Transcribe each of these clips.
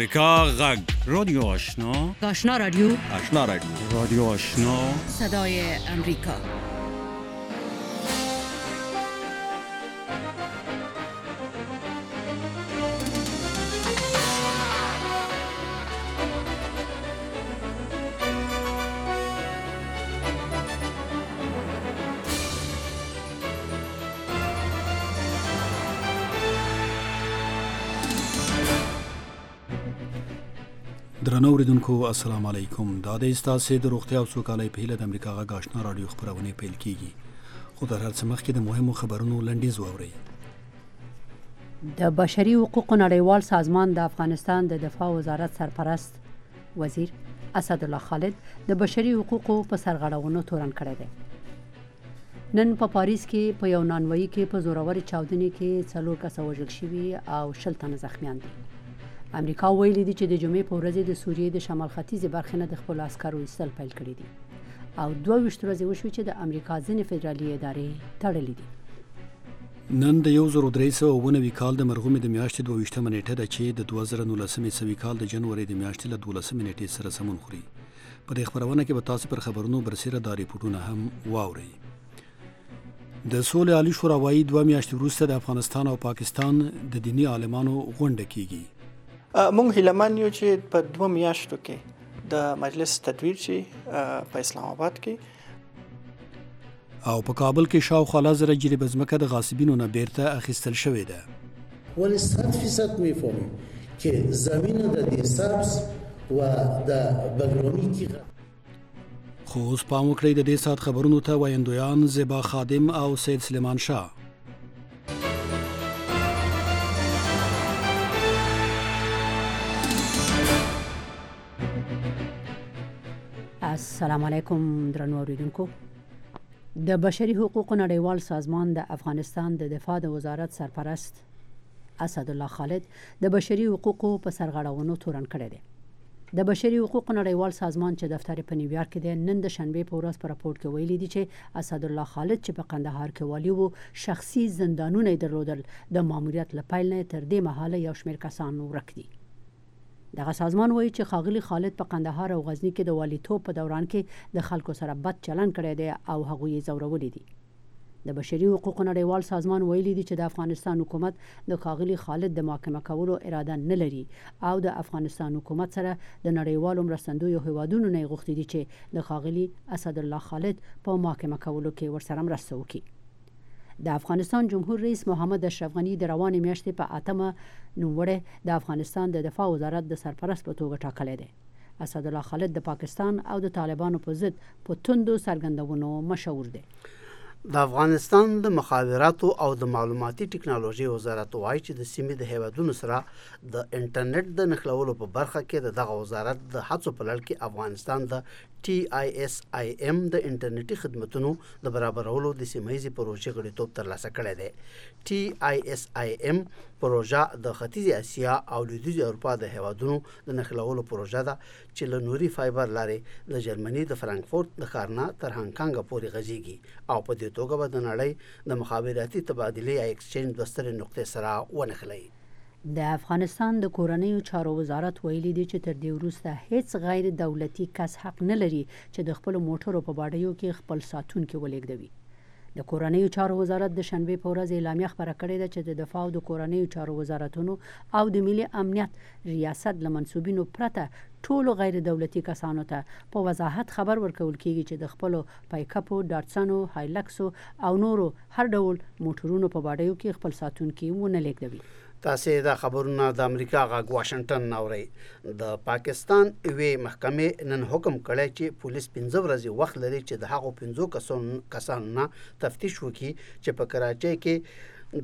امریکا غږ رادیو آشنا رادیو رادیو آشنا صدای امریکا. درنو اوریدونکو السلام علیکم. دا د استاسې د روغتیا او سوکالۍ په هیله د امریکا غږ آشنا رادیو خبرونه پیل کیږي. خو در هر څه مخکې د مهمو خبرونو لنډیز واورئ. د بشري حقوقو نړیوال سازمان د افغانستان د دفاع وزارت سرپرست وزیر اسدالله خالد د بشري حقوقو په سرغړونو تورن کړی دی. نن په پاریس کې په یو نانوایي کې په زوروري چاودنې کې 4 کسه وژل شوي او 60 تنه زخمیان دي. امریکا ویلي دي چې د جمعې په ورځ د سوریې د شمال ختیځې برخې نه د خپل عسکرو ایستل پیل کړي دي او 22 ورځې وشوې چې د امریکا ځینې فدرالي ادارې تړلې دي. نن د 1390 کال د مرغومې د میاشتې 22 نیټه ده چې د 2019 کال د جنوري د میاشتې له 12 نیټې سره سمون خوري. په دې خبرونه کې به تاسو پر خبرونو برسېره دا ریپورتونه هم واورئ. د سولې عالی شورا وايي 2 میاشتې وروسته د افغانستان او پاکستان د دینی عالمانو غونډه کیږي. مونږ هیلهمن یو چې په 2 میاشتو کې د مجلس تدویر شي په اسلام آباد کې او په کابل کې شاوخوا 1000 جریب ځمکه د غاصبینو نه بیرته اخیستل شوې ده. ولی 100% میفهمیم که زمین د سبز و د بګرامي کې. خو اوس پام وکړئ د دې سات خبرونو ته وایندویان زیبا خادم او سید سلیمان شاه. السلام علیکم درنو اوریدونکو. د بشري حقوقو نړیوال سازمان د افغانستان د دفاع د وزارت سرپرست اسدالله خالد د بشري حقوقو په سرغړونو تورن کړی دی. د بشري حقوقو نړیوال سازمان چې دفتر په نیویارک کې دی نن د شنبه په ورځ په راپور کې ویلي دي چې اسدالله خالد چې په قندهار کې والی وو شخصي زندانونه درلودل د ماموریت له پیل نه تر دې مهاله یو شمېر کسان ورک دي. دغه سازمان وایي چې ښاغلي خالد په قندهار او غزنی کې د والیتوب په دوران کې د خلکو سره بد چلند کړی دی او هغوی یې ځورولي دي. د بشري حقوقو نړیوال سازمان ویلي دي چې د افغانستان حکومت د ښاغلي خالد د محاکمه کولو اراده نه لري او د افغانستان حکومت سره د نړیوالو مرستندویو هیوادونو نه غوښتي دي چې د ښاغلي اسدالله خالد په محاکمه کولو کې ورسره مرسته وکړي. د افغانستان جمهور رئیس محمد اشرف غنی د روانې میاشتې په 8مه نوموړی د افغانستان د دفاع وزارت د سرپرست په توګه ټاکلی دی. اسدالله خالد د پاکستان او د طالبانو په ضد په توندو څرګندونو مشهور دی. د افغانستان د مخابراتو او د معلوماتي ټکنالوژي وزارت وایي چې د سیمې د هیوادونو سره د انټرنیټ د نښلولو په برخه کې دغه وزارت د هڅو په لړ کې افغانستان د TISIM د انټرنیټي خدماتو د برابرولو د سیمه‌ییزې پروژې غړیتوب ترلاسه کړی دی. TISIM پروژه د ختیځې اسیا او لویدیځې اروپا د هیوادونو د نښلولو پروژه ده چې له نوري فایبر لارې د جرمني د فرانکفورت د ښار نه تر هانګکانګ پورې غځېږي او په دې توګه به د نړۍ د مخابراتي تبادلې یا ایکسچینج د سترې نقطې سره ونښلي. د افغانستان د کورنیو چارو وزارت ویلي دی چې تر دې وروسته هیڅ غیر دولتي کس حق نه لري چې د خپل موټرو په باډیو کې خپل ساتونکي ولېږدوي. د کورنیو چارو وزارت د شنبه په ورځ اعلامیه خبره کړې ده چې د دفاع او د کورنیو چارو وزارتونو او د ملي امنیت ریاست له منسوبینو پرته ټولو غیر دولتي کسانو ته په وضاحت خبر ورکول کیږي چې د خپل پایکاپو، ډاټسنو، هایلکسو او نورو هر ډول موټرونو په باډیو کې خپل ساتونکي ونه لیږدوي. تاسې دا خبرونه د امریکا غږ واشنگټن اورئ. د پاکستان یوې محکمې نن حکم کړی چې پولیس 15 ورځې وخت لري چې د هغو 15 کسانو نه تفتیش وکړي چې په کراچۍ کې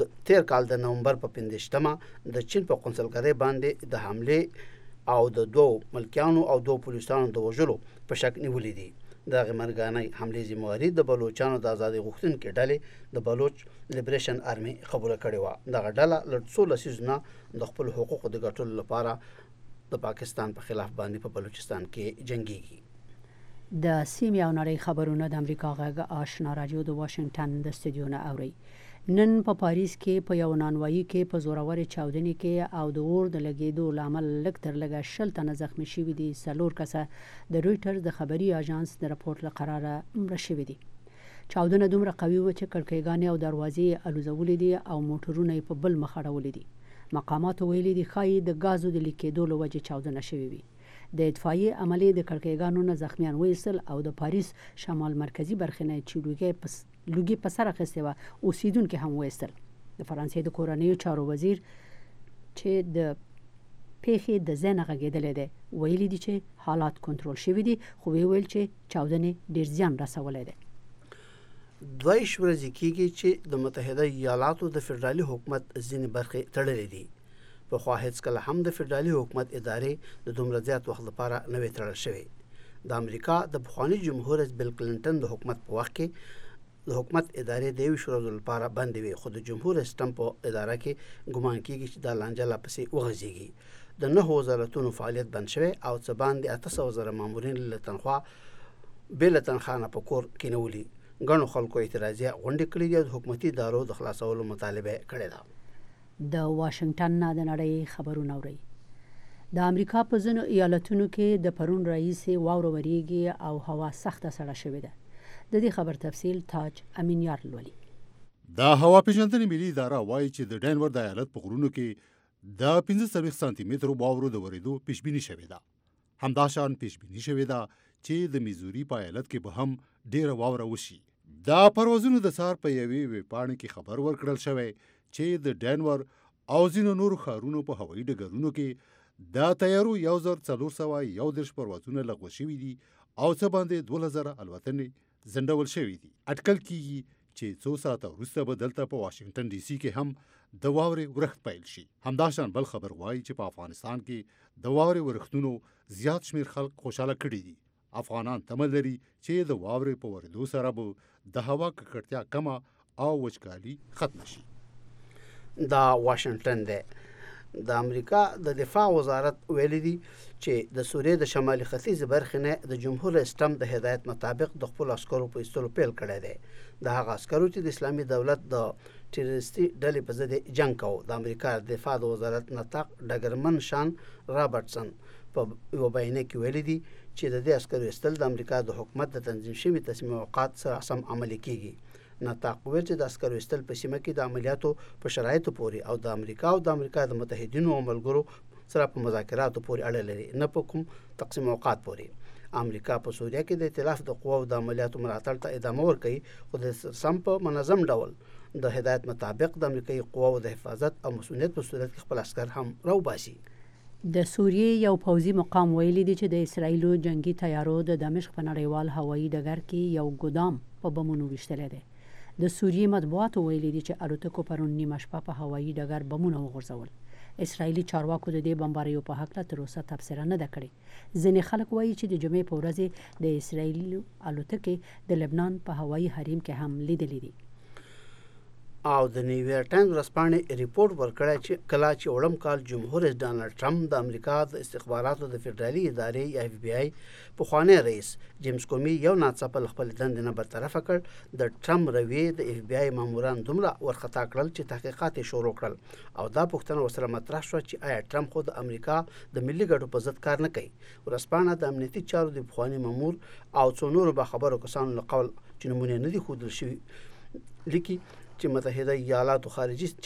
د تیر کال د نومبر په 15مه د چین په قونسلګرۍ باندې د حملې او د 2 ملکیانو او 2 پولیسانو د وژلو په شک نیولې دي. دغه مرګانۍ حملې ذمہواري د بلوچستان د ازادي غوښتونکو ډلې د بلوچ لیبریشن آرمي قبول کړې و. دغه ډله له 16 سیزونه د خپل حقوقو د ګټلو لپاره د پاکستان په خلاف باندې په بلوچستان کې جنگيږي. د سیمې او نړۍ خبرونه د امریکا غږ آشنا رادیو د واشنگټن د استودیو نه اوري. نن په پاریس کې په یو نانوایي کې په زوروري چاودنې کې او د اور د لګیدو لامل لږ تر لږه 60 تنه زخمی شوي دي. 4 کسه د رويټرز د خبري اژانس د راپورټ له قراره مړه شوي دي. چاودنه دومره قوي و چې کړکېګانې او دروازې الوزولې دي او موټرونه په بل مخ اړولې دي. مقامات ویلي دي ښایي د غازو د لیکېدو له وجې چاودنه شوې وي. د اطفائیې عملې د کړکېګانو نه زخمیان وایستل او د پاریس شمال مرکزی برخې نه چې لوګي په سر اخیستې وه اوسیدونکي هم وایستل. د فرانسې د کورنیو چارو وزیر چې د پیښې د ځای نه غږېدلی دی ویلي دي چې حالات کنټرول شوي دي، خو ویل چې چاودنې ډېر زیان رسولی دی. 2 ورځې کېږي چې د متحده ایالاتو د فدرالي حکومت ځینې برخې تړلې دي. پخوا هېڅکله هم د فدرالي حکومت ادارې د دومره زیات وخت لپاره نه وې تړل شوې. د امریکا د پخواني جمهور رئیس بیل کلینټن د حکومت په وخت کې د حکومت ادارې د 20 ورځو لپاره بندې وې، خو د جمهور رئیس ټرمپ په اداره کې ګمان کېږي چې دا لانجه لا پسې وغځېږي. د 9 وزارتونو فعالیت بند شوی او څه باندې 800,000 مامورین له تنخوا بې له تنخوا نه په کور کېنولي. ګڼو خلکو اعتراضیه غونډې کړې دي او د حکومتي ادارو د خلاصولو مطالبه کړې ده. د واشنگټن نه د نړۍ خبرونه اوري. د امریکا په ځینو ایالتونو کې د پرون راهیسې واوره وریږي او هوا سخته سړه شوې ده. د دې خبر تفصیل تاج امینیار لولي. د هوا پیژندنې ملي اداره وایي چې د ډینور د ایالت په غرونو کې د 15 سانتي مترو واورو د ورېدو پیشبیني شوې ده. همداشان پیشبیني شوې ده چې د میزوري په ایالت کې به هم ډیره واوره وشي. دا پروازونو د سار په یوې ویبپاڼې کې خبر ورکړل شوی چې د ډینور او ځینو نورو ښارونو په هوایي ډګرونو کې د طیارو 1411 پروازونه لغوه شوي دي او څه باندې 2000 الوتنې ځنډول شوي دي. اټکل کېږي چې څو ساعته وروسته به دلته په واشنگټن ډي سي کې هم د واورې ورښت پیل شي. همداشان بل خبر وایي چې په افغانستان کې د واورې ورښتونو زیات شمیر خلک خوشاله کړي دي. افغانان تمه لري چې د واورې په ورېدو سره به د هوا ککړتیا کمه او وچکالي ختم شي. دا واشنگټن دی. د امریکا د دفاع وزارت ویلي دي چې د سوریې د شمالي ختیځ برخې نه د جمهور رئیس ټرمپ د هدایت مطابق د خپل عسکرو په ایستلو پیل کړی دی. د هغه عسکرو چې د اسلامي دولت د ټیرریستي ډلې په ضد جنګ کوي. د امریکا د دفاع وزارت نطاق ډګرمن شان رابرټسن په یو بیان کې ویلي دي چې د دې عسکرو ایستل د امریکا د حکومت د تنظیم شوي تصمیمات سره سم عملي کیږي. نطاق ویل چې د عسکرو ایستل په سیمه کې د عملیاتو په شرایطو پورې او د امریکا د متحدینو او ملګرو سره په مذاکراتو پورې اړه لري، نه په کوم تقسیم اوقات پورې. امریکا په سوریه کې د ائتلاف د قواو د عملیاتو ملاتړ ته ادامه ورکوي، خو د سم په منظم ډول د هدایت مطابق د امریکایي قواو د حفاظت او مسؤلیت په صورت کې خپل عسکر هم راوباسي. د سوریې یو پوځي مقام ویلي دی چې د اسرایلو جنگي تیارو د دمشق په نړیوال هوایي ډګر کې یو ګودام په بمونو ویشتلی دی. د سوریې مطبوعاتو ویلي دي چې الوتکو پرون نیمه شپه په هوایي ډګر بمونه وغورځول. اسرایلي چارواکو د دې بمباریو په هکله تر اوسه تبصره نه ده کړې. ځینې خلک وایي چې د جمعې په ورځ د اسرایلي الوتکې د لبنان په هوایي حریم کې هم لیدلې دي. او د نیویارک ټایمز ورځپاڼې ریپورت ورکړی چې کله چې وړم کال جمهور رئیس ډانلډ ټرمپ د امریکا د استخباراتو د فدرالي ادارې یا اف بی آی پخوانی رئیس جیمز کومي یو ناڅاپه له خپل دندې نه برطرفه کړ، د ټرمپ رویې د اف بی آی ماموران دومره ورخطا کړل چې تحقیقات یې شروع کړل او دا پوښتنه ورسره مطرح شوه چې آیا ټرمپ خو د امریکا د ملي ګټو په ضد کار نه کوي. ورځپاڼه د امنیتي چارو د پخواني مامور او څو نورو باخبرو کسانو له قول چې نمونې نه دي ښودل شوي لیکي چې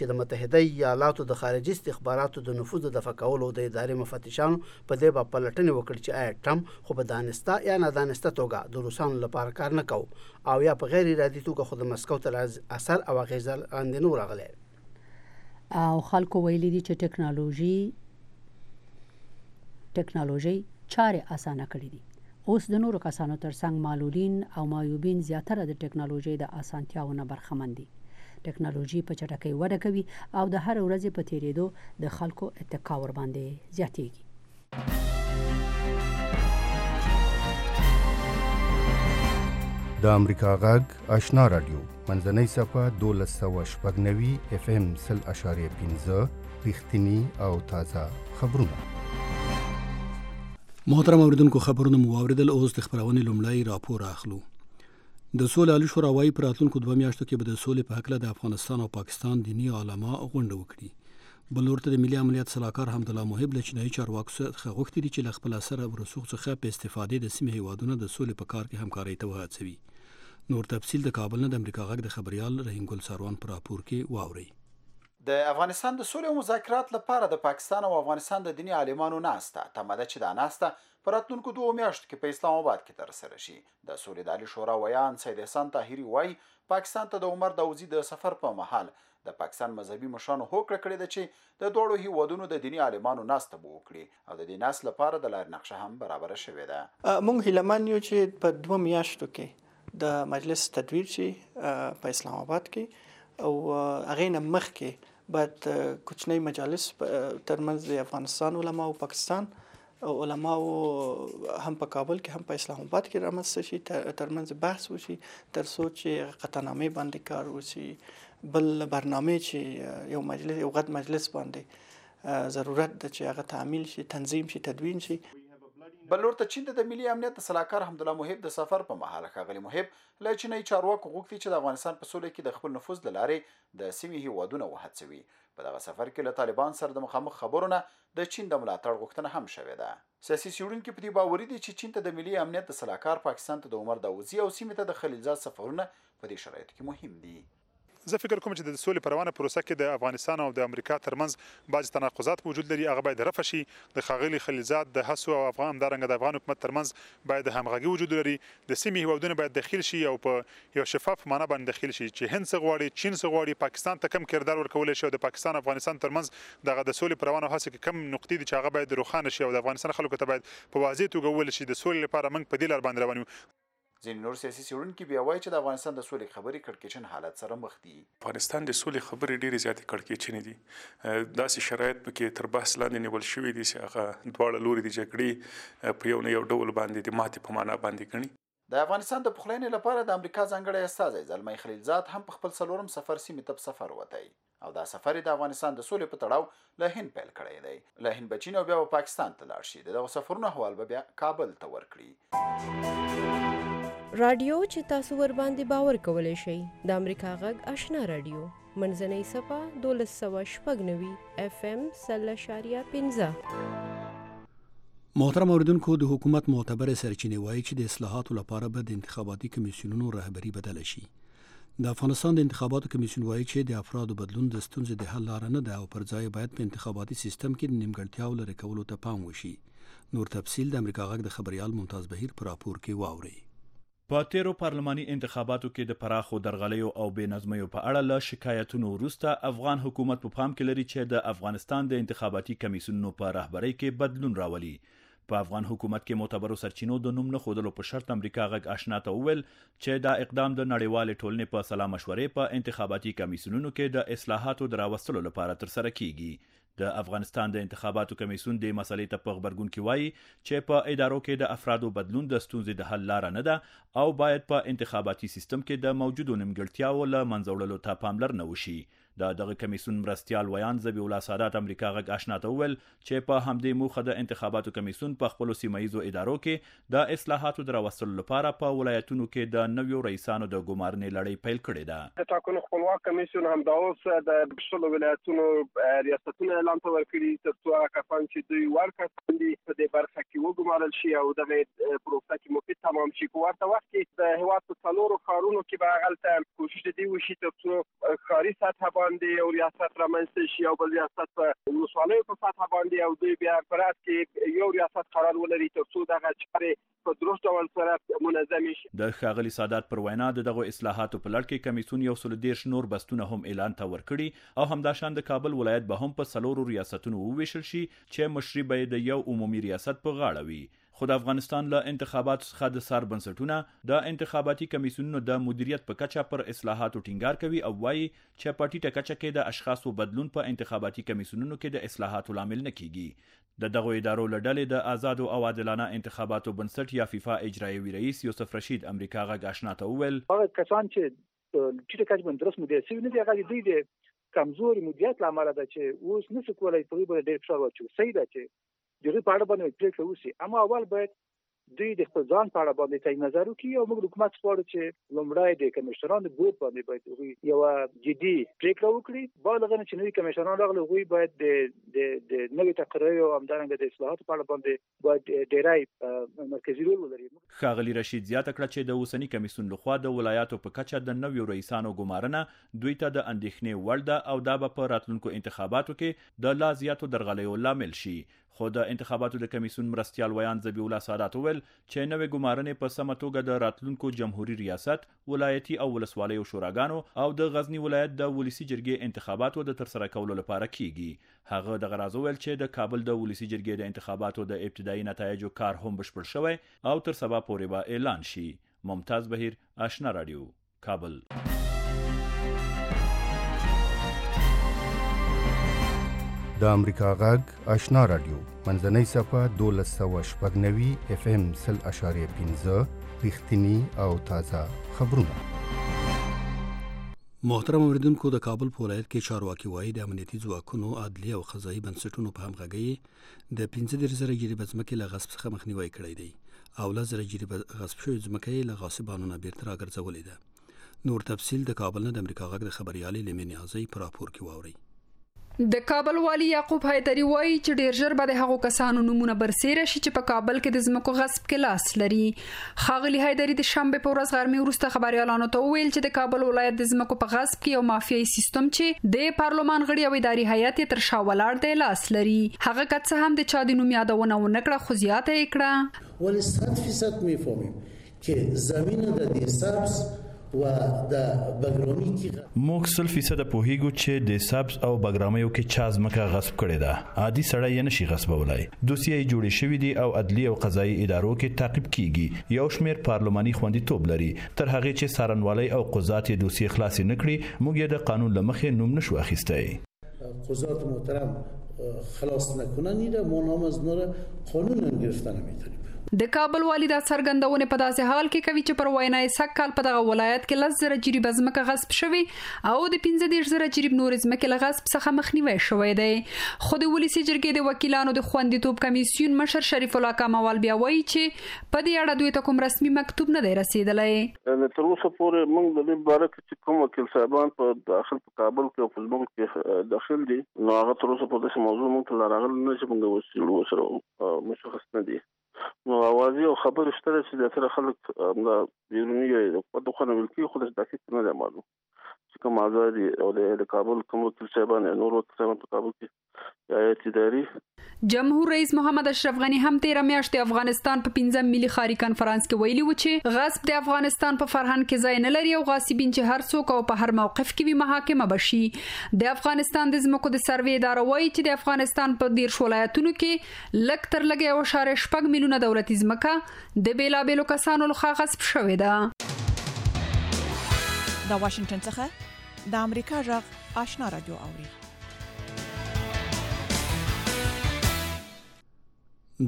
د متحده ایالاتو د خارجي استخباراتو د نفوذ د دفع کولو د ادارې مفتشانو په دې باندې پلټنې وکړي چې آیا ټرمپ خو په دانسته یا نادانسته توګه د روسانو لپاره کار نه کوي او یا په غیر ارادي توګه خو د مسکو تر اثر او اغیز لاندې نه راغلی. او خلکو ویلي دي چې ټکنالوژي چارې اسانه کړې دي. اوس د نورو کسانو ترڅنګ معلولین او معیوبین زیاتره د ټکنالوژي د اسانتیاونو برخمن دي. ټکنالوژي په چټکۍ وده کوي او د هر ورځې په تیریدو د خلکو اتکا ور باندې زیاتېږي. د امریکا غږ آشنا رادیو منځنۍ صفحه 1290 FM 0.5 رښتینی او تازه خبرونه. محترم اوریدونکو، خبرونه مو واوریدل. اوس د خبرونې لومړی راپور اخلو. د سولې عالی شورا وايي په راتلونکو 2 میاشتو کې به د سولې په حق له د افغانستان او پاکستان دینی علما غونډه وکړي. بل ورته د ملي امنیت صلاحکار حمدالله محب له چینایي چارواکو څخه غوښتي دي چې له خپل اثر او رسوخ څخه په استفادې د سیمې هیوادونو د سولې په کار کې همکاري ته وهڅوي. نور تفصیل د کابل نه د امریکا غږ د خبريال رحیم ګل ساروان پر راپور کې واوري. د افغانستان د سولې او مذاکرات لپاره د پاکستان او افغانستان د دینی عالمانو ناسته تماده چې دا ناسته پر راتلونکو 2 میاشتو کې په اسلام آباد کې ترسره شي. د سولې د عالی شورا ویان سید احسان طاهری وایي پاکستان ته د عمر داوزی د سفر په مهال د پاکستان مذهبي مشرانو هوکړه کړې ده چې د دوړو هیوادونو د دینی عالمانو ناسته به وکړي او د دې ناس لپاره د لار نقشه هم برابر شوې ده. مونږ هیلمن یو چې په 2 میاشتو کې د مجلس تدویر شي په اسلام آباد کې او هغه نه مخکې بعد کوچنی مجالس ترمنځ د افغانستان علما او پاکستان علما هم په کابل کې هم په اسلام آباد کې رامنځته شي ترمنځ بحث وشي تر څو چې قطعنامې باندې کار وشي. بل برنامه چې یو مجلس یو غټ مجلس باندې ضرورت ده چې هغه تعمیل شي تنظیم شي تدوین شي. بل ورته چین د ملي امنیت صلاحکار حمدالله محب د سفر په مهال ښاغلي محب له چینایي چارواکو غوښتي چې د افغانستان په سولې کې د خپل نفوذ له لارې د سیمې هیوادونه وهڅوي. په دغه سفر کې له طالبان سره د مخامخ خبرونه د چین د ملاتړ غوښتنه هم شوې ده. سیاسي څېړونکي په دې باوري دي چې چین ته د ملي امنیت صلاحکار پاکستان ته د عمر داوزی او سیمې ته د خلیلزاد سفرونه په دې شرایطو کې مهم دي. زه فکر کوم چې د سولې په روانه پروسه کې د افغانستان او د امریکا ترمنځ بعض تناقضات وجود لري. هغه باید رفع شي. د ښاغلي خلیلزاد د هڅو او افغان همدارنګه د افغان حکومت ترمنځ باید همغږي وجود لري. د سیمې هیوادونه باید داخل شي او په یو شفاف معنا باندې داخل شي چې هند څه غواړي چین څه غواړي پاکستان ته کم کردار ورکول شي او د پاکستان افغانستان ترمنځ دغه د سولې په روانه هڅه کې کم نقطې دي چې هغه باید روښانه شي او د افغانستان خلکو ته باید په واضح توګه وویل شي د سولې لپاره موږ په دې لار باندې روان یو. ځینې نور سیاسي څېړونکي بیا وایي چې د افغانستان د سولې خبرې کړکېچن حالت سره مخ دي. افغانستان د سولې خبرې ډېرې زیاتې کړکېچنې دي. داسې شرایط پکې تر بحث لاندې نیول شوي دي چې هغه دواړه لوري د جګړې په یو نه یو ډول باندې د ماتې په معنا باندې ګڼي. د افغانستان د پخلاینې لپاره د امریکا ځانګړی استازی زلمی خلیلزاد هم په خپل 4م سفر سیمې ته په سفر وتی او دا سفر د افغانستان د سولې په تړاو له هند پیل کړی دی. له هند به چین او بیا پاکستان ته لاړ شي. دغه سفرونو حوال به بیا کابل ته ورکړي. رادیو چې تاسو ور باندې باور کولای شئ د امریکا غږ آشنا رادیو منځنۍ صفه 1290 FM 0.15. محترم اوریدونکو د حکومت معتبر سرچینې وایي چې د اصلاحاتو لپاره به د انتخاباتي کمیسیونونو رهبری بدل شي. د افغانستان د انتخاباتو کمیسیون وایي چې د افرادو بدلون د ستونزې د حل لار نه ده او پر ځای باید په انتخاباتي سیستم کې د نیمګړتیاو لرې کولو ته پام وشي. نور تفصیل د امریکا غږ د خبريال ممتاز بهیر پر راپور کې واوري. په تیرو پارلماني انتخاباتو کې د پراخو درغلیو او بې نظمیو په اړه له شکایتونو وروسته افغان حکومت په پام کې لري چې د افغانستان د انتخاباتي کمیسیونونو په رهبرۍ کې بدلون راولي. په افغان حکومت کې معتبرو سرچینو د نوم نه خودلو په شرط امریکا غږ آشنا ته وویل چې دا اقدام د نړیوال ټولنې په سلا مشورې په انتخاباتي کمیسیونونو کې د اصلاحاتو د راوستلو لپاره ترسره کیږي. د افغانستان د انتخاباتو کمیسیون د مسلې ته په خبرګون کې وایي چې په ادارو کې د افرادو بدلون د ستونزې د حل لار نه ده او باید په انتخاباتي سیستم کې د موجودو نیمګړتیاوو له منځه وړلو ته پاملرنه وشي. دغه کمیسیون مرستیال ویان ذبیح الله سادات امریکا غږ آشنا ته وویل چې په همدې موخه د انتخاباتو کمیسیون په خپلو سیمایزو ادارو کې د اصلاحاتو د راوستلو لپاره په ولایتونو کې د نویو رئیسانو د ګمارنې لړۍ پیل کړې ده. د ټاکنو خپلواک کمیسیون هم دا اوس د شلو ولایتونو ریاستونو اعلان ته ورکړي تر څو کسان چې دوی ورکړي دي په دې برخه کې وګمارل شي او دغه پروسه کې مفید تمام شي. په ورته وخت کې د هیواد په څلورو ښارونو کې به هغلته کوشش دی وشي تر څو ښاري سطح باندې او ریاست رامنځته شي او بل ریاست په ولسوالیو په سطح باندې او دوی بیا په رات کې یو ریاست قرار ولري تر څو دغه چارې په درست ډول سره منظم شي. د ښاغلي سادات پر وینا دغه اصلاحاتو په لړ کې کمیسیون یو 130 نور بستونه هم اعلان ته ورکړي او همداشان د کابل ولایت به هم په څلورو ریاستونو وویشل شي چې مشري به د یو عمومي ریاست په غاړه وي. خو د افغانستان له انتخاباتو څخه د سر بنسټونه د انتخاباتي کمیسیونونو د مدیریت په کچه پر اصلاحاتو ټینګار کوي او وایي چې په ټیټه کچه کې د اشخاصو بدلون په انتخاباتي کمیسیونونو کې د اصلاحاتو لامل نه کیږي. د دغه ادارو له ډلې د آزاد او عادلانه انتخاباتو بنسټ یا فیفا اجرایوي رئیس یوسف رشید امریکا غږ آشنا ته وویل هغه کسان چې ټیټه کچه باندې درست مدیریت شوي نه دي هغه دوی د کمزوري مدیریت لامل ده چې اوس نشي کولای په دې ډېر فشار واچوي. صحیح ده چې دغه په اړه باندې پریکړه وشي اما اول باید دوی د خپل ځان په اړه باندې تعین نظر وکړي او موږ حکومت غواړو چې لومړی د کمشنرانو بورډ باندې باید یو جدي پریکړه وکړي بالغ نه چې نوي کمشنران راغلي غوي باید د نوي تقریر او همدارنګه د اصلاحاتو په اړه باندې باید ډیری مرکزی رول ولري. ښاغلي رشید زیاته کړه چې د اوسنی کمیسیون لخوا د ولایاتو په کچه د نویو رئیسانو ګمارنه دوی ته د اندېښنې وړ ده او دا به په راتلونکو انتخاباتو کې د لا زیاتو درغلیو لامل شي. خو د انتخاباتو د کمیسیون مرستیال ویان ذبیح الله سادات وویل چې نوې ګمارنې په سمه توګه د راتلونکو جمهوریت ریاست، ولایتي او ولسوالیو شوراګانو او د غزنی ولایت د ولسی جرګې انتخاباتو د ترسره کولو لپاره کیږي. هغه د غراض ویل چې د کابل د ولسی جرګې د انتخاباتو د ابتدایي نتایجو کار هم بشپړ شوی او تر سبا پورې به اعلان شي. ممتاز بهیر، آشنا رادیو، کابل. د امریکا غږ آشنا رادیو منځنۍ صفه 1290 اف ام 0.15 رښتینی او تازه خبرونه. محترم اوریدونکو، د کابل په ولایت کې چارواکي وایي د امنیتي ځواکونو، عدلي او قضایي بنسټونو په همغږۍ د 15,000 جریبه ځمکې له غصب څخه مخنیوي کړی دی او 10,000 جریبه غصب شوې ځمکې له غاصبانو نه بیرته راګرځولې ده. نور تفصیل د کابل نه د امریکا غږ د خبريالې لمن نیازی په راپور کې واوري. د کابل والی یعقوب حیدری وایي چې ډیر ژر به د هغو کسانو نمونه برسېره شي چې په کابل کې د ځمکو غصب کې لاس لري. ښاغلي حیدری د شنبه په ورځ غرمې وروسته خبريالانو ته وویل چې د کابل ولایت د ځمکو په غصب کې یو مافیایي سیستم چې د پارلمان غړي او اداري هیئت تر شا ولاړ دی لاس لري. هغه که هم د چا د نوم یادونه ونکړه خو زیاته یې کړه. ولی 100% میفهمیم که زمین د دې سبز و د بګرامي کې موږ 100% پوهیږو چې د سبز او بګرامیو کې چا ځمکه غصب کړې ده. عادي سړی یې نشي غصبولای. دوسیې جوړې شوې دي او عدلي او قضایي ادارو کې تعقیب کیږي. یو شمېر پارلماني خوندیتوب لري. تر هغه چې سارنوالي او قضات یې دوسیې خلاص نکړي موږ یې د قانون لمخې نوم نشو اخیستای. قضات محترم خلاص نکنن ایره ما نام از نور قانون هم گرفتن میتونیم. د کابل والی دا څرګندونه په داسې حال کې کوي چې پر وینای سکهال په دغه ولایت کې 10,000 جریبه ځمکه غصب شوی او د 15,000 جریب نور ځمکه له غصب څخه مخنیوي شوی دی. خو د ولسی جرګې د وکیلانو د خوندیتوب کمیسیون مشر شریف الله کمال بیا وایي چې په دې اړه دوی ته کوم رسمي مکتوب نه دی رسیدلی. تر اوسه پورې موږ د دې باره کې چې کوم وکیل صاحبان په داخل په کابل کې او په ملک کې داخل دي نو هغه تر اوسه په دې موضوع موږ ته راغلي نه چې موږ وسیلو سره مشخص نه دي. نو اوازي او خبر شته چې د تر خلک د بیرونی په دغه ملکی خو د دقیق نه معلوم چې کوم آزادي او د کابل کوم وکیل صاحبان نور وکیل صاحبان په کابل کې یا اداري جمهور رئیس محمد اشرف غنی هم 13 میاشتې افغانستان په 15 ملي خاري کانفرنس کې ویلي و چې غصب د افغانستان په فرهنګ کې ځای نه لري او غاصبین چې هر څوک او په هر موقف کې وي محاکمه بشي. د افغانستان د ځمکو د سروې اداره وایي چې د افغانستان په 10 ولایتونو کې لک تر لګي او 4.5 میلیونه دولتي ځمکه د بیلابېلو کسانو لخوا غصب شوې ده. د واشنگټن څخه د امریکا غږ آشنا رادیو اوري.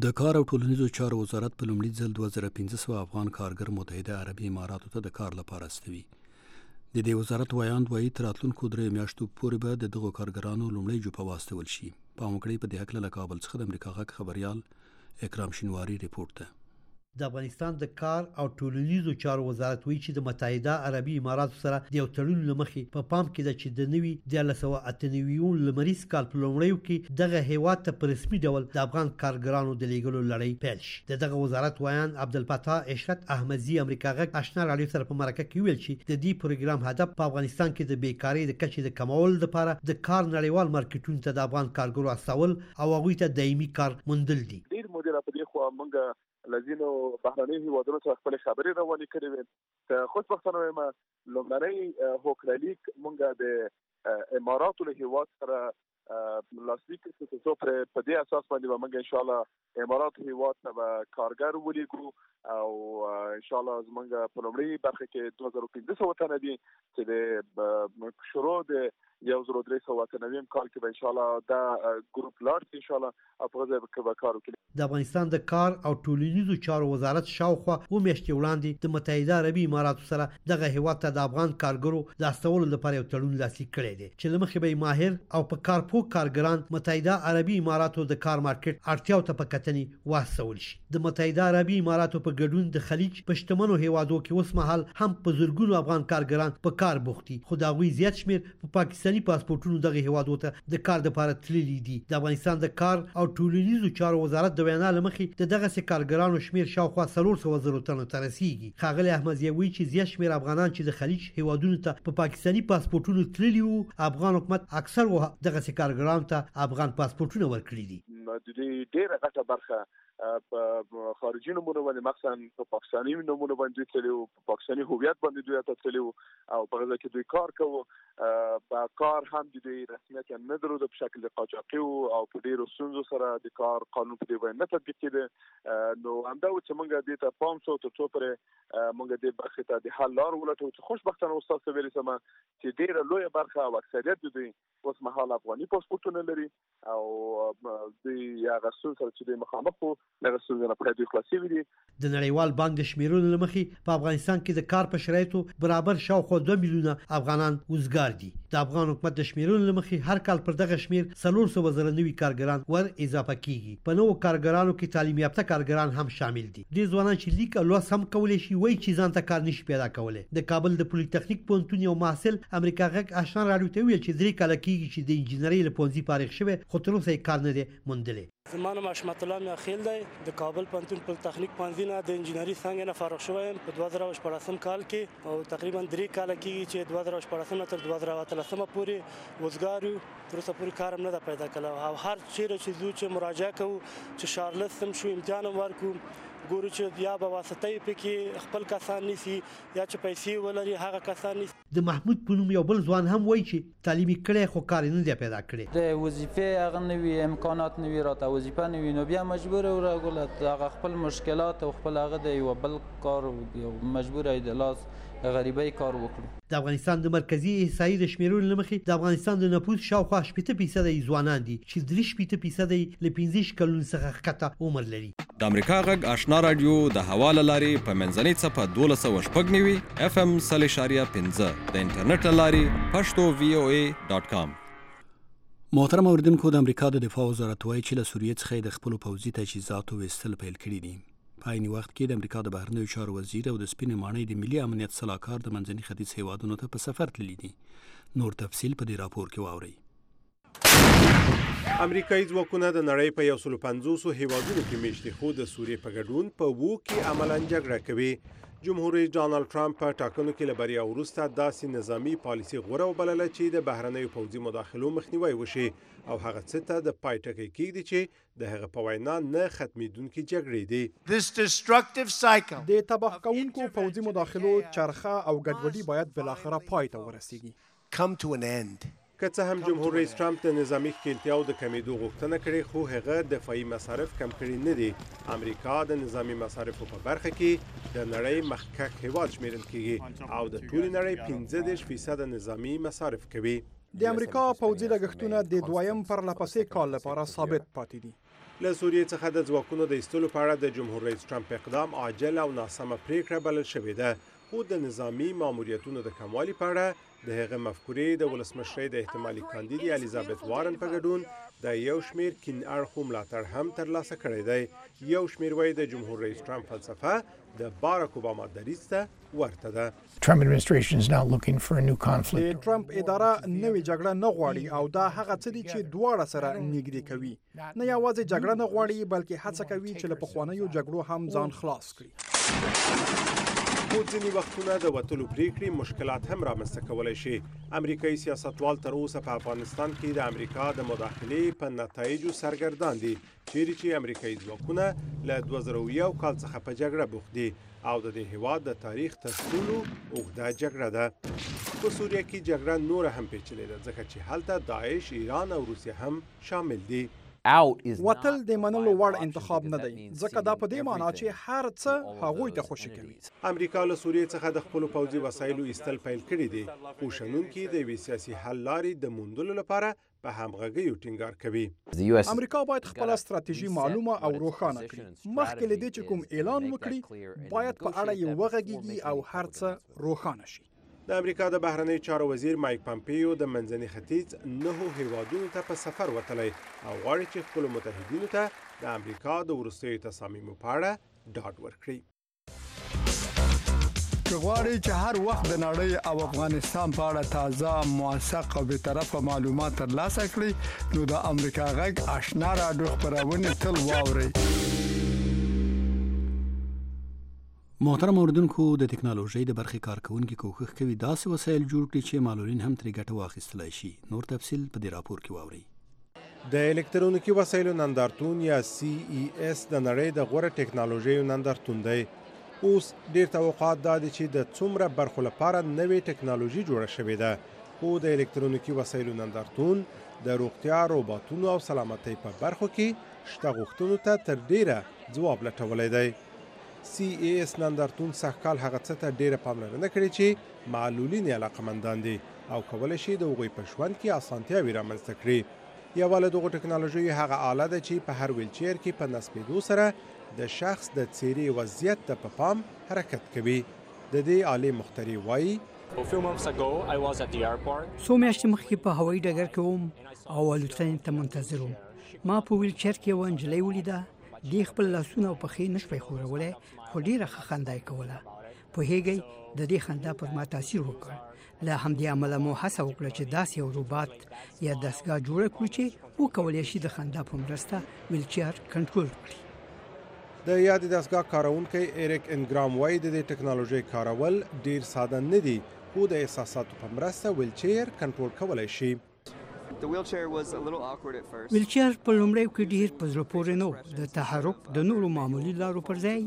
د کار او ټولنیزو چارو وزارت په لومړي ځل 2500 افغان کارګر متحده عربي اماراتو ته د کار لپاره استوي. د دې وزارت وایاند وایي تر راتلونکو 3 میاشتو پورې به د دغو کارګرانو لومړی جوپه واستول شي. په موکړې په دې حق له کابل څخه د امریکا غږ خبريال اکرام شینواری ریپورت ده. د افغانستان د کار او ټولنیزو چارو وزارت وایي چې د متحده عربي اماراتو سره د یو تړون لمخې په پام کې ده چې د نوي 1998 لمریز کال په لومړیو کې دغه هیواد ته په رسمي ډول د افغان کارګرانو د لیږلو لړۍ پیل شي. دغه وزارت وایان عبدالفتاح اشرت احمدزي امریکا غږ آشنا رادیو سره په مرکه کې ویل چې د دې پروګرام هدف په افغانستان کې د بیکاری د کچې د کمولو لپاره د کار نړیوال مارکیټونو ته د افغان کارګرو استول او هغوی ته دایمي کار موندل دي. ډیر مدیر په دې خو موږ لذینو بهرني هیوادونو څخه خپل خبرې روانې کړې وې. خوشبختانه وایم لومړنۍ هوکړلیک موږ د اماراتو له هیواد سره لاسلیک کړو چې په دې اساس باندې موږ ان شاء الله اماراتو هیواد ته کارګر ولیکو او ان شاء الله زموږ په لومړی برخه کې 2500 وطن دي چې د شروع د 1390 کال کې به ان شاء الله دا ګروپ لاړ ان شاء الله په ځای کې به کار وکړي. د افغانستان د کار او ټولنیزو چارو وزارت شاوخوا میاشتې وړاندې د متحده عربي اماراتو سره دغه هیواد ته د افغان کارګرو د استولو لپاره یو تړون لاسلیک کړی دی چې له مخې به ماهر او په کار پوه کارګران متحده عربي اماراتو د کار مارکیټ اړتیاو ته په کتنې واستول شي. د متحده عربي اماراتو په ګډون د خلیج په شتمنو هیوادو کې اوس مهال هم په زرګونو افغان کارګران په کار بوخت دي، خو د هغوی زیات شمیر په پاکستاني پاسپورتونو دغه هیوادو ته د کار لپاره تللي دي. د افغانستان د کار او ټولنیزو چارو وزارت د وینا له مخې د دغه کارګرانو شمیر شاوخوا 300,000 تنو ته رسیږي. ښاغلی احمدزی وایي چې زیات شمیر افغانان چې د خلیج هیوادونو ته په پاکستاني پاسپورتونو تللي وو، افغان حکومت اکثر دغه کارګرانو ته افغان پاسپورتونه ورکړي دي. د دې ډیره غټه برخه په خارجي نمونه باندې مخصوصا په پاکستاني نمونه باندې تللی وو، په پاکستاني هویت باندې دوی ته تللی وو او په غزا کې دوی کار کوي. په کار هم د دوی رسمیت نه درلود په شکل قاچاقي او په ډیرو ستونزو سره د کار قانون په دې باندې نه تطبیق کېده. نو همدا چې موږ دې ته پام شو تر څو پرې موږ دې برخه ته د حل لار ولټو چې خوشبختانه استاد ویلي سم چې ډیره لویه برخه او اکثریت د دوی اوس مهال افغاني پاسپورتونه لري او دوی هغه څه سره چې د مخامخ وو هغه څه نه پرې دوی خلاصي وي. د نړیوال بانک د شمیرونو لمخې په افغانستان کې د کار په شرایطو برابر شاوخوا 2 میلیونه افغانان وزګار دي. د افغان حکومت د شمیرونو لمخې هر کال پر دغه شمیر 300,000 نوي کارګران ور اضافه کیږي. په نوو کارګرانو کې تعلیم یافته کارګران هم شامل دي. د ځوانان چې لیک او لوست هم کولای شي وایي چې ځان ته کار نشي پیدا کولای. د کابل د پولی تخنیک پوهنتون یو محصل امریکا غږ آشنا راډیو ته ویل چې 3 کال کېږي چې د انجینرۍ له پوهنځي فارغ شوی خو تر اوسه کار نه دی موندلی. زما نوم حشمت الله میاخیل دی. د کابل پوهنتون پولی تخنیک پوهنځي نه د انجینرۍ څانګې نه فارغ شوی یم په 2014 کال کې او تقریبا 3 کال کېږي چې 2014 تر 2013 پورې وزګار یو. تر اوسه پورې کار هم نه ده پیدا کړی او هر چیرې چې ځو چې مراجعه کوو چې شارلس هم شو امتحان هم ورکو ګورو چې یا به واسطې پکې خپل کسان نیسي یا چې پیسې ولري هغه کسان نیسي. د محمود په نوم یو بل ځوان هم وایي چې تعلیم کړی خو کار نه دی پیدا کړی. د وظیفې هغه نوي امکانات نوي راته وظیفه نوي نو بیا مجبور و راغله هغه خپل مشکلات او خپل هغه د یو بل کار مجبور ای د لاس غریبۍ کار وکړو. د افغانستان د مرکزی احصایې د شمیرونو لمخې د افغانستان د نفوس شاوخوا 8% ځوانان دي چې 3% له 15 کلونو څخه ښکته عمر لري. د امریکا غږ آشنا رادیو د حواله لارې په منځنۍ څپه 1290 FM 0.15 د انټرنیټ لارې pashto.voa.com. محترم اوریدونکو، د امریکا د دفاع وزارت وایي چې له سوریې څخه د خپل پوځي تجهیزاتو ویستل پیل کړي دي. په عین وخت کې د امریکا د بهرنیو چارو وزیر او د سپینې ماڼۍ د ملي امنیت صلاحکار د منځني ختیځ هیوادونو ته په سفر تللي دي. نور تفصیل په دې راپور کې واورئ. امریکایي ځواکونه د نړۍ په 150 هیوادونو کې میشتي خو د سوریې په ګډون په وو کې عملاً جګړه کوي. جمهور رئیس ډانلډ ټرمپ په ټاکنو کې له بریا وروسته داسې نظامی پالیسي غوره وبلله چې د بهرنیو پوځي مداخلو مخنیوی وشي او هغه څه ته د پای ټکی کېږدي چې د هغه په وینا نه ختمېدونکې جګړې دي. د تباه کوونکو پوځي مداخلو چرخه او ګډوډي باید بالاخره پای ته ورسیږي. که څه هم جمهور رئیس ټرمپ د نظامی ښکېلتیاو د کمیدو غوښتنه کړې خو هغه دفاعي مصارف کم کړي نه دي. امریکا د نظامی مصارفو په برخه کې د نړۍ مخکښ هیواد شمیرل کېږي او د ټولې نړۍ 15% نظامی مصارف کوي. د امریکا پوځي لګښتونه د دویم پرلپسې کال لپاره ثابت پاتې دي. له سوریې څخه د ځواکونو د ایستلو په اړه د جمهور رئیس ټرمپ اقدام عاجل او ناسمه پریکړه بلل شوې ده. خو د نظامی ماموریتونو د کموالي په اړه د هغه مفکورې د ولسمشرۍ د احتمالي کاندید الیزابت وارن په ګډون د یو شمیر کین اړخو ملاتړ هم ترلاسه کړی دی. یو شمیر وایي د جمهور رئیس ټرمپ فلسفه د باراک اوباما دریځ ته ورته ده. د ټرمپ اداره نوې جګړه نه غواړي او دا هغه څه دي چې دواړه سره نږدې کوي. نه یوازې جګړه نه غواړي بلکې هڅه کوي چې له پخوانیو جګړو هم ځان خلاص کړي. خو ځینې وختونه د وتلو پریکړې مشکلات هم رامنځته کولی شي. امریکایي سیاستوال تر اوسه په افغانستان کې د امریکا د مداخلې په نتایجو سرګردان دي، چیرې چې امریکایي ځواکونه له 2001 کال څخه په جګړه بوخت دي او د دې هیواد د تاریخ تر ټولو اوږده جګړه ده. په سوریه کې جګړه نوره هم پیچلې ده ځکه چې هلته داعش، ایران او روسیه هم شامل دي. وتل د منلو وړ انتخاب نه دی ځکه دا په دې معنی چې هر څه هغوی ته خوشي کوي. امریکا له سوریې څخه د خپل پوځي وسایلو ایستل پیل کړي دي او شنونکي د وی سیاسي حل لارې د موندلو لپاره په همغږي ټینګار کوي. امریکا باید خپل ستراتیژي معلومه او روښانه کړي. مخکې له دې چې کوم اعلان وکړي باید په اړه یې وغږیږي او هر څه روښانه شي. د امریکا د بهرنی چارو وزیر مایک پامپیو د منځني ختیځ 9 هیوادونو ته په سفر وتلی او غواړي چې خپل متحدینو ته د امریکا د وروستیو تصامیمو په اړه ډاډ ورکړي. که غواړئ چې هر وخت د نړۍ او افغانستان په اړه تازه، موثق او بیطرفه معلومات ترلاسه کړئ نو د امریکا غږ آشنا راډیو خپرونه تل واورئ. محترم اوریدونکو، د ټکنالوژي د برخې کارکونکو کوښښ کوي داسې وسایل جوړ کړي چې معلولین هم ترې ګټه واخیستلای شي. نور تفصیل په دې راپور کې واورئ. د الکترونیکي وسایلو نندارتون یا CES د نړۍ د غوره ټکنالوژیو نندارتون دی. اوس ډیر توقعات دا دي چې د څومره برخو لپاره نوې ټکنالوژي جوړه شوې ده. خو د الکترونیکي وسایلو نندارتون د روغتیا، روباټونو او سلامتۍ په برخو کې شته غوښتنو ته تر ډیره ځواب لټولی دی. CES نندارتون سږکال هغه څه ته ډیره پاملرنه کړې چې معلولین یې علاقمندان دي او کولی شي د هغوی په ژوند کې اسانتیاوې رامنځته کړي. یوه له دغو ټکنالوژیو هغه آله ده چې په هر ویلچیر کې په نصبېدو سره د شخص د څیرې وضعیت ته په پام حرکت کوي. د دې آلې مخترع وایي څو میاشتې مخکې په هوایي ډګر کې وم او الوتنې ته منتظر وم. ما په ویلچیر کې یوه نجلۍ ولیده. دې خپل لاسونه او پښې نشوی ښورولی خو ډېره ښه خندا یې کوله. پوهېږئ د دې خندا پر ما تاثیر وکړ. له همدې امله مو هڅه وکړه چې داسې یو روباټ یا دستګاه جوړه کړو چې وکولی شي د خندا په مرسته ویلچیر کنټرول کړي. د یاد دستګاه کارونکی ایریک انګرام وایي د دې ټکنالوژۍ کارول ډیر ساده نه دي خو د احساساتو په مرسته ویلچیر کنټرول کولی شي. ویلچیر په لومړیو کې ډیر په زړه پورې نه و. د تحرک د نورو معمولي لارو پر ځای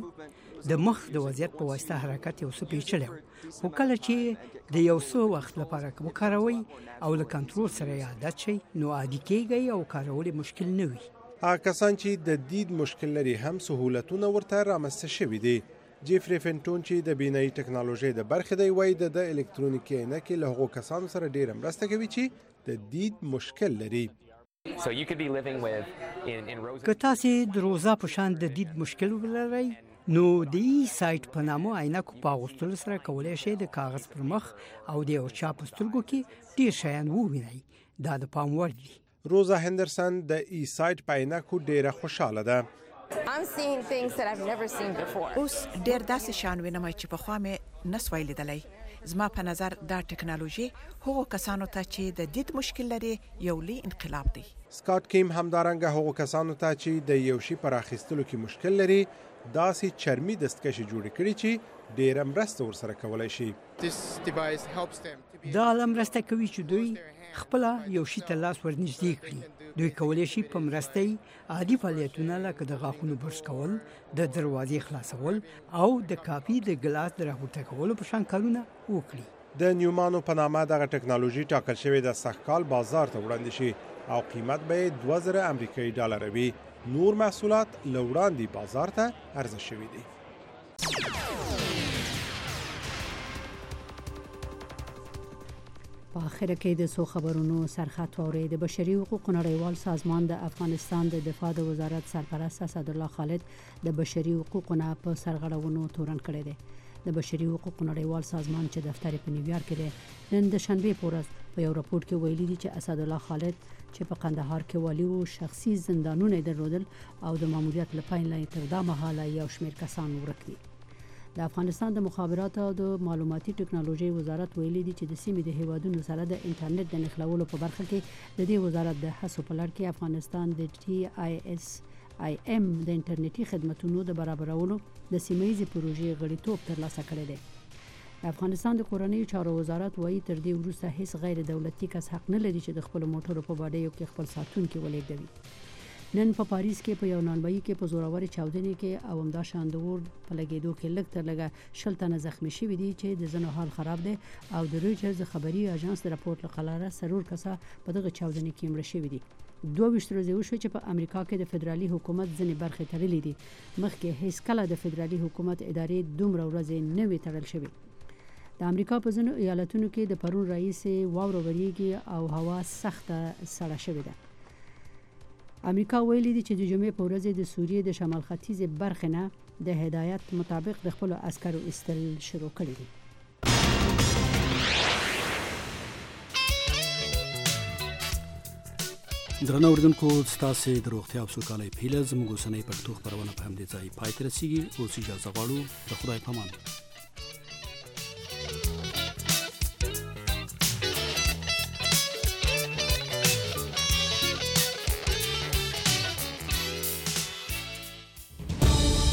د مخ د وضعیت په واسطه حرکت یو څه پیچلی و. خو کله چې د یو څه وخت لپاره وکاروئ او له کنټرول سره یې عادت شئ نو عادي کیږئ او کارول یې مشکل نه وي. هغه کسان چې د دید مشکل لري هم سهولتونه ورته رامنځته شوي دي. جیفری فنټون چې د بینایي ټکنالوژۍ د برخې دی وایي د الکترونیکي عینکې له هغو کسانو سره ډېره مرسته کوي چې د دید مشکل لري. که تاسې د روزا په شان د دید مشکل ولرئ نو د ای سایټ په نامه عینکو په اغوستلو سره کولی شئ د کاغذ پر مخ او د یو چا په سترګو کې ډېر شیان ووینئ. دا د پام وړ دي. روزا هندرسن د ای سایټ په عینکو ډېره خوشحاله ده. اوس ډېر داسې شیان وینم چې پخوا مې نسوای لیدلی. زما په نظر دا ټکنالوژي هغو کسانو ته چې د دید مشکل لري یو لوی انقلاب دی. سکاټ کیم همدارنګه هغو کسانو ته چې د یو شي پر اخیستلو کې مشکل لري داسې چرمي دستکشې جوړې کړي چې ډېره مرسته ورسره کولی شي. دا آله مرسته کوي چې دوی خپله یو شي ته لاس ورنږدې کړي. دوی کولی شي په مرسته یې عادي فعالیتونه لکه د غاښونو برش کول، د دروازې خلاصول او د کاپي د ګلاس د راپورته کولو په شان کارونه وکړي. د نیومانو په نامه دغه ټکنالوژي ټاکل شوې د سږکال بازار ته وړاندې شي او قیمت به یې 2000 امریکایي ډالر وي. نور محصولات له وړاندې بازار ته عرضه شوي دي. په اخر کې د سو خبرونو سرخط واوري. د بشري حقوقو نړیوال سازمان د افغانستان د دفاع د وزارت سرپرست اسدالله خالد د بشري حقوقو نه په سرغړونو تورن کړی دی. د بشري حقوقو نړیوال سازمان چې دفتر په نیویارک کې دی نن د شنبه په ورځ په یو راپور کې ویلي دي چې اسدالله خالد چې په قندهار کې والي او شخصي زندانونه درلودل او د ماموریت لپاره لاندې تر دا مهاله یو شمېر کسان ورک دي. د افغانستان د مخابراتو او د معلوماتي ټکنالوژي وزارت ویلي دي چې د سیمې د هیوادونو سره د انټرنیټ د نښلولو په برخه کې د دې وزارت د هڅو په لړ کې افغانستان د TISIM د انټرنیټي خدماتو د برابرولو د سیمه‌ییزې پروژې غړیتوب ترلاسه کړی دی. د افغانستان د کورنۍ چارو وزارت وایي تر دې وروسته هیڅ غیر دولتي کس حق نه لري چې د خپل موټرو په باډیو کې خپل ساتونکي ولېږدوي. نن په پاریس کې په یو نانبایي کې په زوروري چاودنې کې او همدا شاندور په لګیدو کې لږ تر لږه 60 تنه زخمی شوي دي چې د زنو حال خراب دی او د رويټرز خبري اژانس د راپورټ لقلاره سرور کسا په دغه چاودنې کې مړ شوي دي 22 ورځې وشو چې په امریکا کې د فدرالي حکومت ځنې برخې تړلې دي مخکې هیڅ کله د فدرالي حکومت ادارې دومره ورځې نه وي تړل شوي د امریکا په ځینو ایالتونو کې د پرون رئیس واورو وریږي او هوا سخته سړه شوې ده امریکا ویلي دي چې د جمعې په ورځ د سوریې د شمال ختیځ برخې نه د هدایت مطابق د خپل عسکرو استل شروع کړي دي درنو اوریدونکو ستاسو د روغتیا او سوکالۍ په هیله زموږ اوسنۍ پښتو خبرونه په همدې ځای پای ته رسیږي او اجازه غواړو د خدای په امان